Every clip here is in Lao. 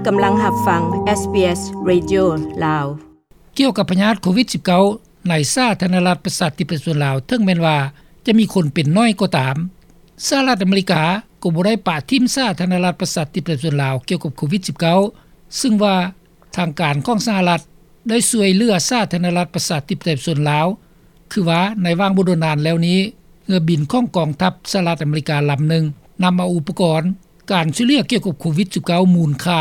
ກຳລັງຮັບຟັງ ເອສບີເອສ ເຣດິໂອ ລາວ. ກ່ຽວກັບພະຍາດໂຄວິດສິບເກົ້າ ໃນສາທາລະນະລັດປະຊາທິປະໄຕປະຊາຊົນລາວ, ເຖິງແມ່ນວ່າຈະມີຄົນເປັນໜ້ອຍກໍຕາມ, ສະຫະລັດອາເມລິກາກໍບໍ່ໄດ້ປະຖິ້ມສາທາລະນະລັດປະຊາທິປະໄຕປະຊາຊົນລາວກ່ຽວກັບໂຄວິດສິບເກົ້າ, ຊຶ່ງວ່າທາງການຂອງສະຫະລັດໄດ້ຊ່ວຍເຫຼືອສາທາລະນະລັດປະຊາທິປະໄຕປະຊາຊົນລາວ. ຄືວ່າໃນຫວ່າງບໍ່ດົນນານແລ້ວນີ້, ເຮືອບິນຂອງກອງທັບສະຫະລັດອາເມລິກາລຳໜຶ່ງ ນຳເອົາອຸປະກອນການຊ່ວຍເຫຼືອກ່ຽວກັບໂຄວິດສິບເກົ້າ ມູນຄ່າ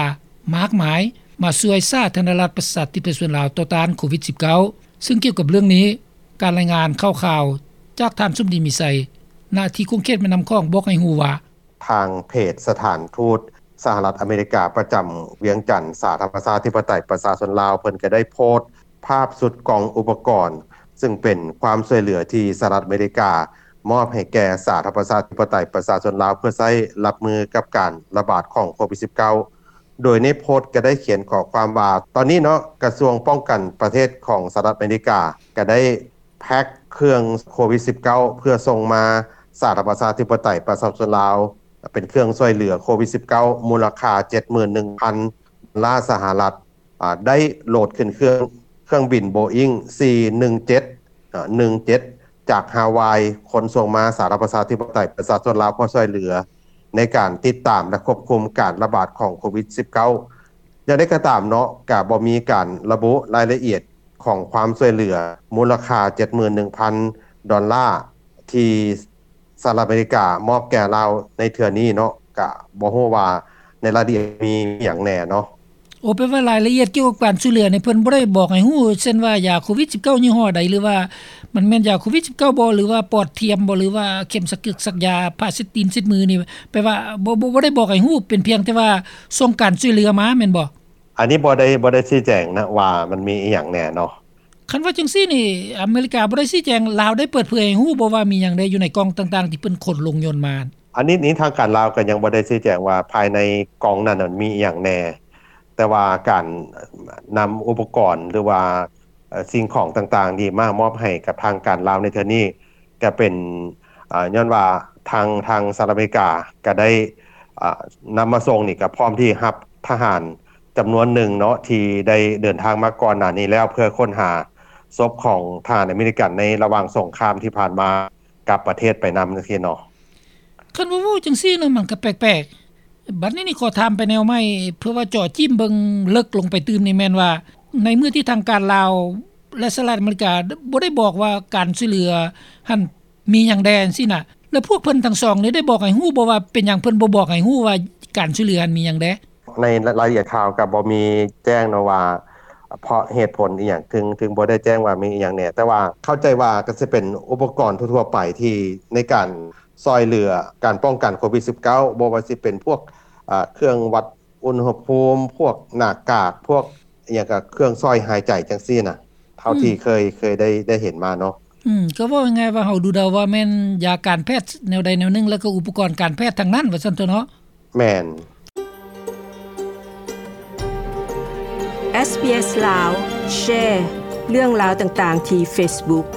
ມາກມາຍ ມາຊ່ວຍສາທາລະນະລັດປະຊາທິປະໄຕປະຊາຊົນລາວຕໍ່ຕ້ານໂຄວິດສິບເກົ້າ. ຊຶ່ງກ່ຽວກັບເລື່ອງນີ້, ການລາຍງານຂ່າວໆ ຈາກທ່ານສົມດີ ມີໄຊ ນະທີ່ຂົງເຂດແມ່ນ້ຳຂອງ ບອກໃຫ້ຮູ້ວ່າ ທາງເພຈສະຖານທູດສະຫະລັດອາເມລິກາປະຈຳວຽງຈັນ ສາທາລະນະລັດປະຊາທິປະໄຕປະຊາຊົນລາວ ເພິ່ນກໍໄດ້ໂພສ ພາບຊຸດກ່ອງອຸປະກອນ ຊຶ່ງເປັນຄວາມຊ່ວຍເຫຼືອທີ່ສະຫະລັດອາເມລິກາມອບໃຫ້ແກ່ສາທາລະນະລັດປະຊາທິປະໄຕປະຊາຊົນລາວ ເພື່ອໃຊ້ຮັບມືກັບການລະບາດຂອງໂຄວິດສິບເກົ້າ. ໂດຍໃນໂພສກໍໄດ້ຂຽນຂໍ້ຄວາມວ່າ ຕອນນີ້ເນາະ ກະຊວງປ້ອງກັນປະເທດຂອງສະຫະລັດອາເມລິກາກໍໄດ້ແພັກເຄື່ອງໂຄວິດສິບເກົ້າ ເພື່ອສົ່ງມາສາທາລະນະລັດປະຊາທິປະໄຕປະຊາຊົນລາວ ເປັນເຄື່ອງຊ່ວຍເຫຼືອໂຄວິດສິບເກົ້າ ມູນລະຄ່າເຈັດໝື່ນໜຶ່ງພັນດອນລາສະຫະລັດ. ອາ ໄດ້ໂຫຼດຂຶ້ນເຄື່ອງ ເຄື່ອງບິນໂບອິງ ສີ່ໜຶ່ງເຈັດ ອາ ໜຶ່ງເຈັດ ຈາກຮາວາຍ ຂົນສົ່ງມາສາທາລະນະລັດປະຊາທິປະໄຕປະຊາຊົນລາວ ເພື່ອຊ່ວຍເຫຼືອໃນການຕິດຕາມ ແລະ ຄວບຄຸມການລະບາດຂອງໂຄວິດສິບເກົ້າ. ຢ່າງໃດກໍຕາມເນາະ ກະບໍ່ມີການລະບຸລາຍລະອຽດຂອງຄວາມຊ່ວຍເຫຼືອ ມູນລະຄ່າເຈັດໝື່ນໜຶ່ງພັນດອນລາ ທີ່ ສະຫະລັດອາເມລິກາມອບແກ່ລາວໃນເທື່ອນີ້ເນາະ, ກະບໍ່ຮູ້ວ່າໃນລາຍລະອຽດມີຫຍັງແດ່ເນາະ. ໂອ ແປວ່າລາຍລະອຽດກ່ຽວກັບການຊ່ວຍເຫຼືອນີ້ ເພິ່ນບໍ່ໄດ້ບອກໃຫ້ຮູ້ ເຊັ່ນວ່າຢາໂຄວິດສິບເກົ້າຍີ່ຫໍ້ໃດ ຫຼືວ່າມັນແມ່ນຢາໂຄວິດສິບເກົ້າບໍ່ ຫຼືວ່າປອດທຽມບໍ່ ຫຼືວ່າເຂັມສັກກຶກສັກຢາ ຜ້າເຊັດຕີນເຊັດມືນີ້ ແປວ່າບໍ່ ບໍ່ ບໍ່ໄດ້ບອກໃຫ້ຮູ້ ເປັນພຽງແຕ່ວ່າສົ່ງການຊ່ວຍເຫຼືອມາແມ່ນບໍ່? ອັນນີ້ບໍ່ໄດ້ ບໍ່ໄດ້ຊີ້ແຈງນະວ່າມັນມີອີ່ຫຍັງແດ່ເນາະ. ຄັນວ່າຈັ່ງຊີ້ນີ້ ອາເມລິກາບໍ່ໄດ້ຊີ້ແຈງ, ລາວໄດ້ເປີດເຜີຍໃຫ້ຮູ້ບໍ່ວ່າມີຫຍັງແດ່ຢູ່ໃນກ່ອງຕ່າງໆທີ່ເພິ່ນຂົນລົງຍົນມາ? ອັນນີ້ນີ້ທາງການລາວກໍຍັງບໍ່ໄດ້ຊີ້ແຈງວ່າພາຍໃນກ່ອງນັ້ນນະມີອີ່ຫຍັງແດ່, ແຕ່ວ່າການນຳອຸປະກອນ ຫຼືວ່າ ເອີ ສິ່ງຂອງຕ່າງໆນີ້ມາມອບໃຫ້ກັບທາງການລາວໃນເທື່ອນີ້ ກໍເປັນ ອາ ຍ້ອນວ່າທາງ ທາງສະຫະລັດອາເມລິກາກໍໄດ້ ອາ ນຳມາສົ່ງນີ້ ກໍພ້ອມທີ່ຮັບທະຫານຈຳນວນໜຶ່ງເນາະ ທີ່ໄດ້ເດີນທາງມາກ່ອນໜ້ານີ້ແລ້ວ ເພື່ອຄົ້ນຫາສົບຂອງທະຫານອາເມລິກັນໃນລະຫວ່າງສົງຄາມທີ່ຜ່ານມາກັບປະເທດໄປນຳ ຈັ່ງຊີ້ເນາະ. ຄັນວ່າເວົ້າຈັ່ງຊີ້ເນາະ ມັນກໍແປກໆ. ບັດນີ້ນີ້ຂໍຖາມໄປແນວໃໝ່ ເພື່ອວ່າເຈາະຈີ້ມເບິ່ງເລິກລົງໄປຕື່ມນີ້ ແມ່ນວ່າໃນມື້ທີ່ທາງການລາວ ແລະ ສະຫະລັດອາເມລິກາບໍ່ໄດ້ບອກວ່າການຊ່ວຍເຫຼືອຫັ້ນ ມີຫຍັງແດ່ຈັ່ງຊີ້ນະ ແລ້ວພວກເພິ່ນທັງສອງນີ້ໄດ້ບອກໃຫ້ຮູ້ບໍ່ວ່າເປັນຫຍັງເພິ່ນບໍ່ບອກໃຫ້ຮູ້ວ່າການຊ່ວຍເຫຼືອຫັ້ນມີຫຍັງແດ່? ໃນລາຍລະອຽດຂ່າວກໍບໍ່ມີແຈ້ງເນາະວ່າ ເພາະເຫດຜົນອີ່ຫຍັງ ເຖິງ ເຖິງບໍ່ໄດ້ແຈ້ງວ່າມີອີ່ຫຍັງແດ່, ແຕ່ວ່າເຂົ້າໃຈວ່າກໍຊິເປັນອຸປະກອນທົ່ວໆໄປທີ່ໃນການຊ່ອຍເຫຼືອການປ້ອງກັນໂຄວິດສິບເກົ້າ ບໍ່ວ່າຊິເປັນພວກ ອາ ເຄື່ອງວັດ ອຸນຫະພູມ ພວກໜ້າກາກ ພວກອີ່ຫຍັງກະເຄື່ອງຊ່ອຍຫາຍໃຈຈັ່ງຊີ້ນະ ເທົ່າທີ່ ອືມ ເຄີຍ ເຄີຍໄດ້ ໄດ້ເຫັນມາເນາະ. ອືມ ກໍເວົ້າງ່າຍໆວ່າເຮົາດູເດົາວ່າແມ່ນຢາການແພດແນວໃດແນວໜຶ່ງ ແລ້ວກໍອຸປະກອນການແພດທັງນັ້ນວ່າຊັ້ນເຖາະເນາະ. ແມ່ນ. ເອສບີເອສ ລາວ ແຊເລື່ອງລາວຕ່າງໆທີ່ເຟສບຸກ.